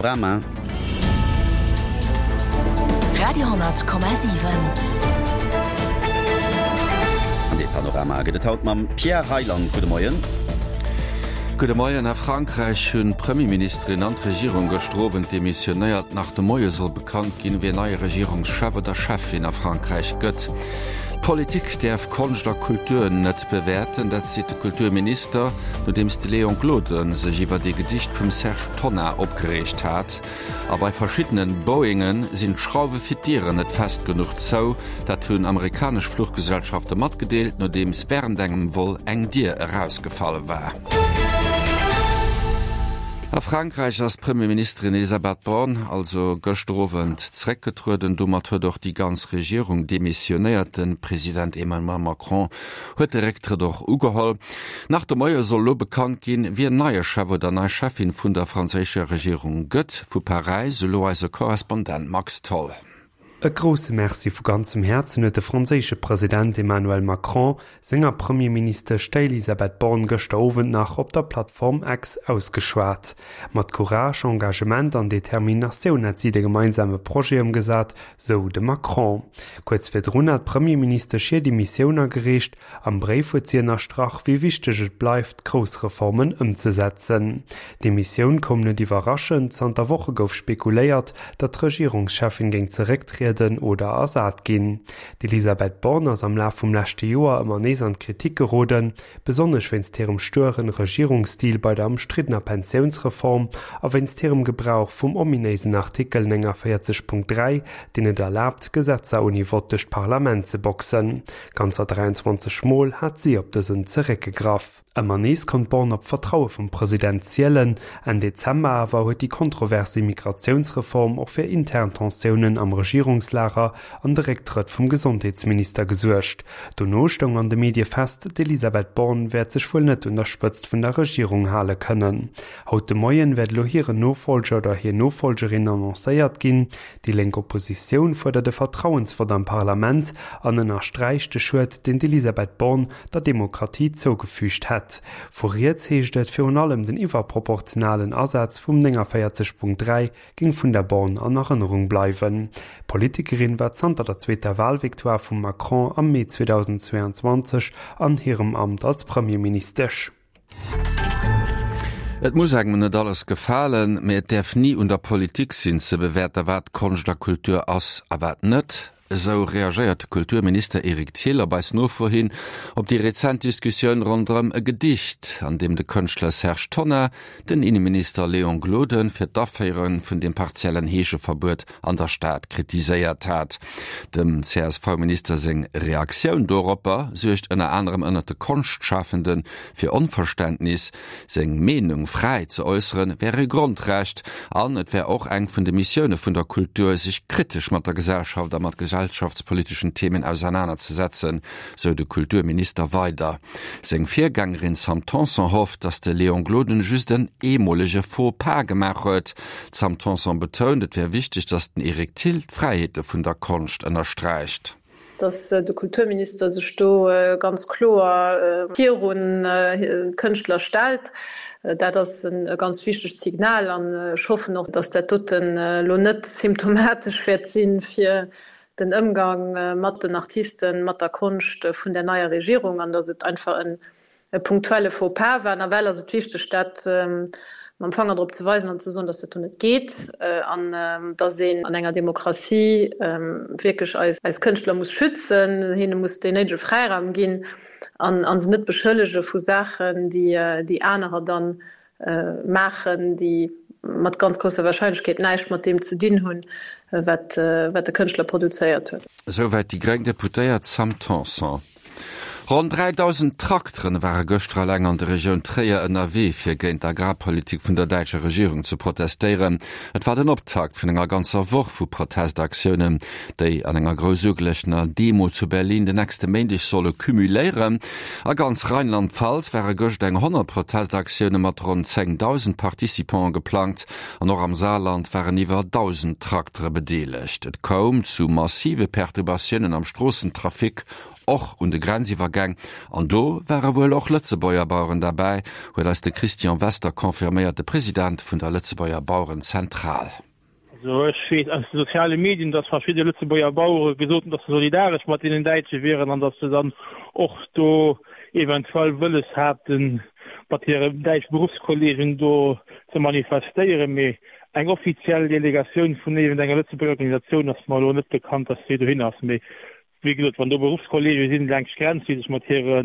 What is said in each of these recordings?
Panorama. Radio,7. An dee Panorama gëtt et haut mam Pierre Reyland. Gudde Moien. Gudde Moien. A Frankräich hunn d'Premierministerin an d'Regierung gëschter Owend demissionéiert. Nach de Moie soll bekannt ginn, wien neie Regierungschef oder Cheffin a Frankräich gëtt. D'Politik däerf Konscht a Kultur net bewäerten, dat seet de Kulturminister, nodeems de Léon Gloden sech iwwert ee Gedicht vum Serge Tonnar opgereegt hat. A bei verschiddene Boeinge sinn d'Schrauwe fir d'Dieren net fest genuch zou. Dat hunn amerikanesch Fluchgesellschafte matgedeelt, nodeems wärend engem Vol eng Dier erausgefall war. A Frankräich ass d'Premierministerin Elisabeth Borne also gëschter Owend zeréckgetrueden. Domat huet och déi ganz Regierung demissionéiert. De President Emmanuel Macron huet de Récktrëtt och ugeholl. Nach de Moie soll elo bekannt ginn, wien neie Chef oder nei Cheffin vun der franséischer Regierung gëtt. Vu Paräis elo eise Korrespondent Max Tholl. E grousse Merci vu ganzem Häerzen huet de franséische President Emmanuel Macron senger Premierministesch, der Elisabeth Borne, gëschter Owend nach op der Plattform X ausgeschwat. Mat Courage, Engagement an Determinatioun hätt si de gemeinsame Projet ëmgesat, sou de Macron. Kuerz virdrun hat d'Premierministesch hir Demissioun agereecht. Am Bréif huet si ënnerstrach, wéi wichteg et bleift, grouss Reformen ëmzesetzen. D'Demissioun koum net iwwerraschend, zanter Woche gouf spekuléiert, datt d'Regierungscheffin géing zerécktrieden oder ersat ginn. D'Elisabeth Borne ass am Laf vum leschte Joer ëmmer nees an d'Kritik geroden, besonnesch wéinst hirem stueren Regierungsstil bei der ëmstriddener Pensiounsreform a wéinst hirem Gebrauch vum ominéisen Artikel 49.3, deen et erlaabt, Gesetzer ouni Vott duerch d'Parlament ze boxen. Ganzer 23 Mol hat si op dësen zeréckgegraff. Ëmmer nees konnt d'Borne op d'Vertraue vum President zielen. Enn Dezember awer huet déi kontrovers Immigratiounsreform och fir intern Tensiounen am Regierungslager an de Récktrëtt vum Gesondheetsminister gesuergt. Dono stoung an de Medie fest, d'Elisabeth Borne wäert sech wuel net un der Spëtzt vun der Regierung hale kënnen. Haut de Moien wäert elo hiren Nofollger oder hir Nofollgerin annoncéiert ginn. Déi lénk Oppositioun fuerdert e Vertrauensvott am Parlament an ënnersträicht de Schued, deen d'Elisabeth Borne der Demokratie zougefügt hätt. Vu riets heescht et, virun allem den iwwerproportionalen Asaz vum 49.3 géing vun der Borne an Erënnerung bleiwen. D'Politikerin war zanter der zweeter Walvictoire vum Macron am Mee 2022 an hirem Amt als Premierministesch. Et muss engem net alles gefalen, mee et däerf ni un der Politik sinn ze bewäerten, wat Konscht a Kultur ass a wat net. Esou reagéiert de Kulturminister Eric Thill op eis Nofro hin op déi rezent Diskussioun ronderëm e Gedicht, an deem de Kënschtler Serge Tonnar den Inneminister Léon Gloden fir d'Aféiere vun dem partiellen Heescheverbuet an der Stad kritiséiert hat. Dem CSV-Minister seng Reaktioun doropper suergt ënner anerem ënnert de Konschtschafende fir Onverständnis. Seng Meenung fräi ze äusseren, wär e Grondrecht an et wär och eng vun de Missioune vun der Kultur, sech kritesch mat der Gesellschaft a mat gesellschaftspoliteschen Themen ausernanerzesetzen, sou de Kulturminister weider. Seng Virgängerin Sam Tanson hofft, datt de Léon Gloden just en eemolege Faux pas gemaach huet. D'Sam Tanson betount, et wär wichteg, datt den Eric Thill d'Fräiheete vun der Konscht ënnersträicht. Datt de Kulturminister sech do ganz kloer virun d'Kënschtler stellt, dat ass e ganz wichtegt Signal. An ech hoffen och, datt dat doten elo net symptomatesch wäert si fir den Ëmgang mat den Artisten, mat der Konscht vun der neier Regierung an datt et einfach e punktuelle Faux-pas war. Nawell ass et wichteg, dat mam Fanger drop ze weisen an ze soen, datt dat do net geet an datt een an enger Demokratie wierklech eis Kënschtler muss schützen, hinne muss deen néidege Fräiraum ginn an se net beschëllege vu Saachen, déi anerer dann maachen, déi mat ganz grousser Warscheinlechkeet näischt mat deem ze dinn hunn, wat de Kënschtler produzéiert huet. Esouwäit déi gréng Deputéiert Sam Tanson. Ronn 3.000 Trakteren ware gëschter eleng an der Regioun Tréier ënnerwee, fir géint d'Agrarpolitik vun der däitscher Regierung ze protestéieren. Et war den Optakt vun enger ganzer Woch vu Protestaktiounen, déi an enger grouss ugeluechtener Demo zu Berlin den nächste Méindeg solle cumuléieren. A ganz Rheinland-Pfalz ware gëscht eng 100 Protestaktioune mat ronn 10.000 Participante geplangt an och am Saarland waren iwwer 1.000 Traktere bedeelegt. Et koum zu massive Perturbatiounen am Stroossentrafic. och un de Grenziwwergäng. An do ware wuel och Lëtzebuerger Baueren derbäi, huet eis de Christian Wester confirméiert, de President vun der Lëtzebuerger Bauerenzentral. Also ech weess aus de soziale Medien, datt verschidde Lëtzebuerger Bauere gesot hunn, datt se solidaresch mat deenen Däitsche wieren an datt se dann och do eventuell wëlles haten, mat hire däitsche Beruffskolleegen do ze manifestéieren. Mee eng offiziell Delegatioun vun iergendenger Lëtzebuerger Organisatioun ass mer elo net bekannt, datt déi dohin ass. Mee Wéi gesot, wann do Beruffskolleege sinn laanscht d'Grenz, déi sech mat hire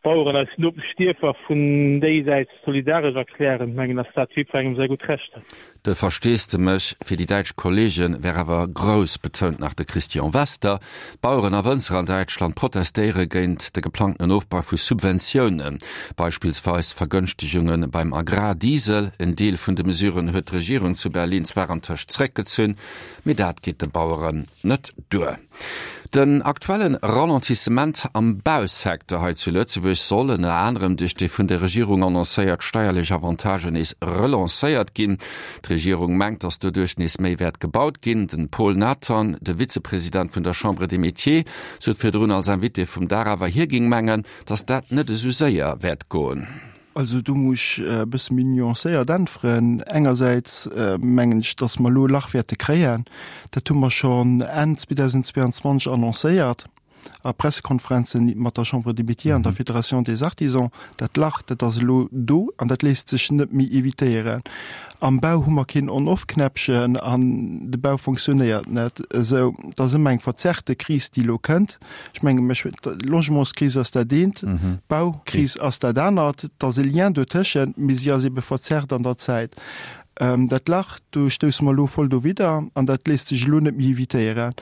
Baueren aus Nopeschdierfer vun déisäits solidaresch erklären, mengen ass dat jiddwerengem säi gutt Recht. De Versteesdemech fir déi däitsch Kolleege wär awer grouss, betount nach de Christian Wester. D'Baueren a Wënzer an Däitschland protestéiere géint de geplangtenen Ofbau vu Subventiounen, beispillsweis Vergënschtegunge beim Agrardiesel. En Deel vun de Mesuren huet d'Regierung zu Berlin zwar antëscht zeréckgezunn, mee dat geet de Baueren net duer. Den aktuelle Ralentissement am Bausecteur hei zu Lëtzebuerg soll, ënner anerem duerch déi vun der Regierung annoncéiert steierlech Avantagen, nees relancéiert ginn. D'Regierung mengt, datt doduerch nees méi wäert gebaut ginn. Den Paul Nathan, de Vizepresident vun der Chambre des Métiers, sot virdrun als Invité vum Dag awer, hie géing mengen, datt dat net esou séier wäert goen. Also do muss ech e bësse méi nuancéiert äntweren. Engersäits mengen ech, datt mer elo e Lach wäerte kréien. Dat hu mer schonn Enn 2022 annoncéiert a Pressekonferenzen mat der Chambre des Métiers an der Fédération des Artisans. Dat Lach, dat ass elo do an dat léisst sech net méi evitéieren. Am Bau hu mer keen On-off-Knäppchen an de Bau fonctionnéiert net esou. Et ass ëmmer eng verzerrte Kris, déi elo kënnt. Ech menge mech, d'Logementskris ass dat eent, d'Baukris ass dat anert. Et ass e Lien dotëschent, mee si ass ebe verzerrt an der Zäit. Dat Lach, do stousse mer elo voll dowidder an dat léisst sech elo net méi evitéieren.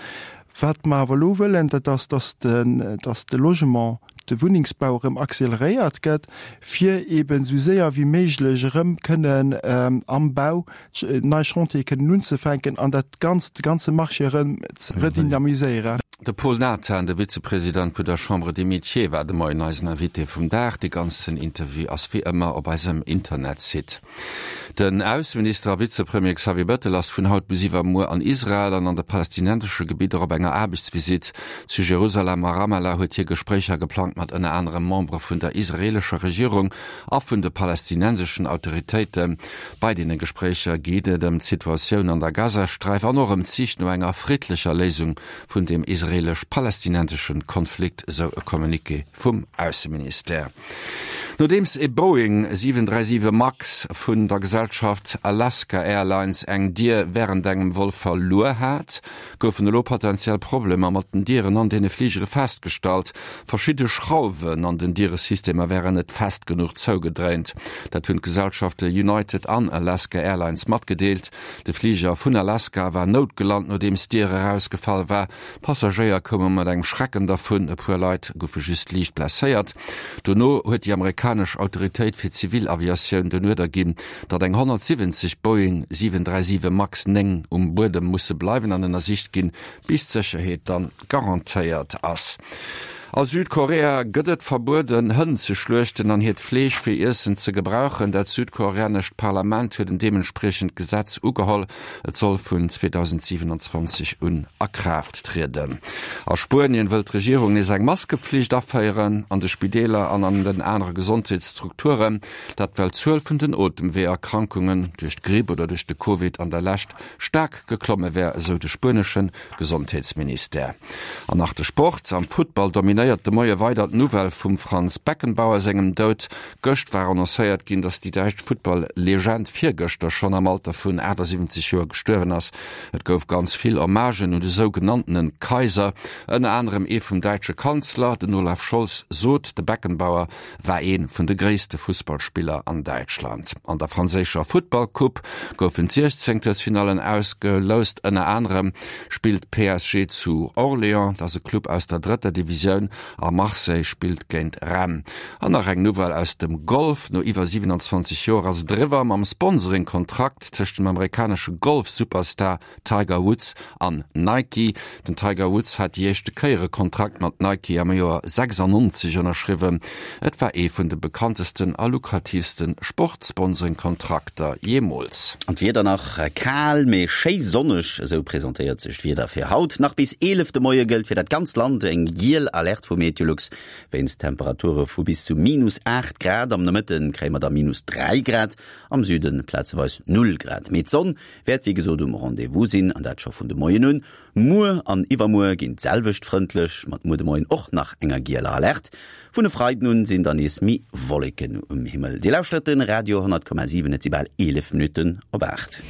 Wat mer awer elo wëllen, dat ass, dass de, dass de Logement, de Wunnengsbau erëm acceleréiert gëtt, fir eeben esou séier wéi méiglech erëm kënnen am Bau nei Chantiere kënnen unzefänken an dat Ganzt, de ganze Marché erëm ze redynamiséieren. De Paul Nathan, de Vizepresident vun der Chambre des Métiers, war de Moien eisen Invité vum Dag. De ganzen Interview ass wéi ëmmer op eisem Internetsite. Den Ausseminister a Vizepremier Xavier Bettel ass vun haut bis iwwermuer an Israel an an de palästinensesche Gebidder op enger Aarbechtsvisitt. Zu Jerusalem a Ramallah huet hie Gespréicher geplangt mat ënner anerem Membere vun der israeelescher Regierung a vun de palästinenseschen Autoritéiten. Bei deene Gespréicher geet et ëm d'Situatioun an der Gazasträif an och ëm d'Sich no enger friddlecher Léisung vun dem israeelesch-palästinensesche Konflikt, esou e Communiqué vum Ausseministère. Nodeems e Boeing 737 Max vun der Gesellschaft Alaska Airlines eng Dier wärend engem Vol verluer hat, goufen elo potentiell Problemer mat den Dieren an deene Fligere festgestallt. Verschidde Schrauwen an den Dieresystemer wären net fest genuch zougedréint. Dat hunn d'Gesellschafte United an Alaska Airlines matgedeelt. De Fliger vun Alaska war noutgelant, nodeems d'Dier erausgefall war. D'Passagéier koume mat engem Schrecken dervun, e puer Leit goufe just liicht blesséiert. Dono huet déi amerikanesch Autoritéit fir Zivilaviatioun den Uerder ginn, datt eng 170 Boeing 737 Max 9 um Buedem musse bleiwen an ënnersicht ginn, bis d'Sécherheet dann garantéiert ass. A Südkorea gëtt et verbueden, Hënn ze schluechten an hiert Fleesch fir Iessen ze gebrauchen. Dat südkoreanescht Parlament huet en deementspriechend Gesetz ugeholl. Et soll vun 2027 un a Kraaft trieden. A Spuenien wëll d'Regierung nees eng Maskepflicht aféieren an de Spideeler an an den anere Gesondheetsstrukturen. Dat well d'Zuel vun den Otemweeërkrankungen duerch d'Gripp oder duerch de Covid an der Lescht staark geklomme wär, esou de spuenesche Gesondheetsministère. An nach de Sport, Am Futtball dominéiert de Moie weider d'Nouvelle vum Franz Beckenbauer sengem Doud. Gëscht war annoncéiert ginn, datt déi däitsch Futtball-Legend virgëschter schonn am Alter vun 78 Joer gestuerwen ass. Et gouf ganz vill Hommagen un de sougenanntene Kaiser, ënner anerem ee vum däitsche Kanzler. Den Olaf Scholz sot, de Beckenbauer war ee vun de gréisste Fussballspiller an Däitschland. An der franséischer Futtballcoupe goufen d'Siechzéngtelsfinallen ausgeloust. Ënner anerem spillt PSG zu Orléans, dat ass e Club aus der drëtter Divisioun, a Marseille spillt géint Rennes. An nach eng Nouvelle aus dem Golf, No iwwer 27 Joer ass et eriwwer mam Sponsoring-Kontrakt tëscht dem amerikanesche Golf-Superstar Tiger Woods an Nike. Den Tiger Woods hat déi éischte Kéier e Kontrakt mat Nike am Joer 96 ënnerschriwwen. Et war ee vun de bekanntesten a lukratiivste Sportsponsoring-Kontrakter jeemools. An d'Wieder nach, Kal, mee schéi sonneg, esou presentéiert sech d'Wieder fir haut. Nach bis 11 de Moie gëllt fir dat ganzt Land eng giel Alerte. Alerte vu Meteolux wéinst Temperature vu bis zu minus 8 Grad. Am Nomëtte kréie mer da minus 3 Grad, am Süde plazeweis 0 Grad. Mee d'Sonn wäert wéi gesot um Rendez-vous sinn, an dat scho vun de Moien un. Muer an iwwermuer ginn d'selwecht frëndlech, mat muer de Moien och nach enger gieler Alerte. Vun e Freiden un sinn dann nees méi Wolleken um Himmel. Dir lauschtert de Radio 10,7, et si bal 11 Minutten op 8.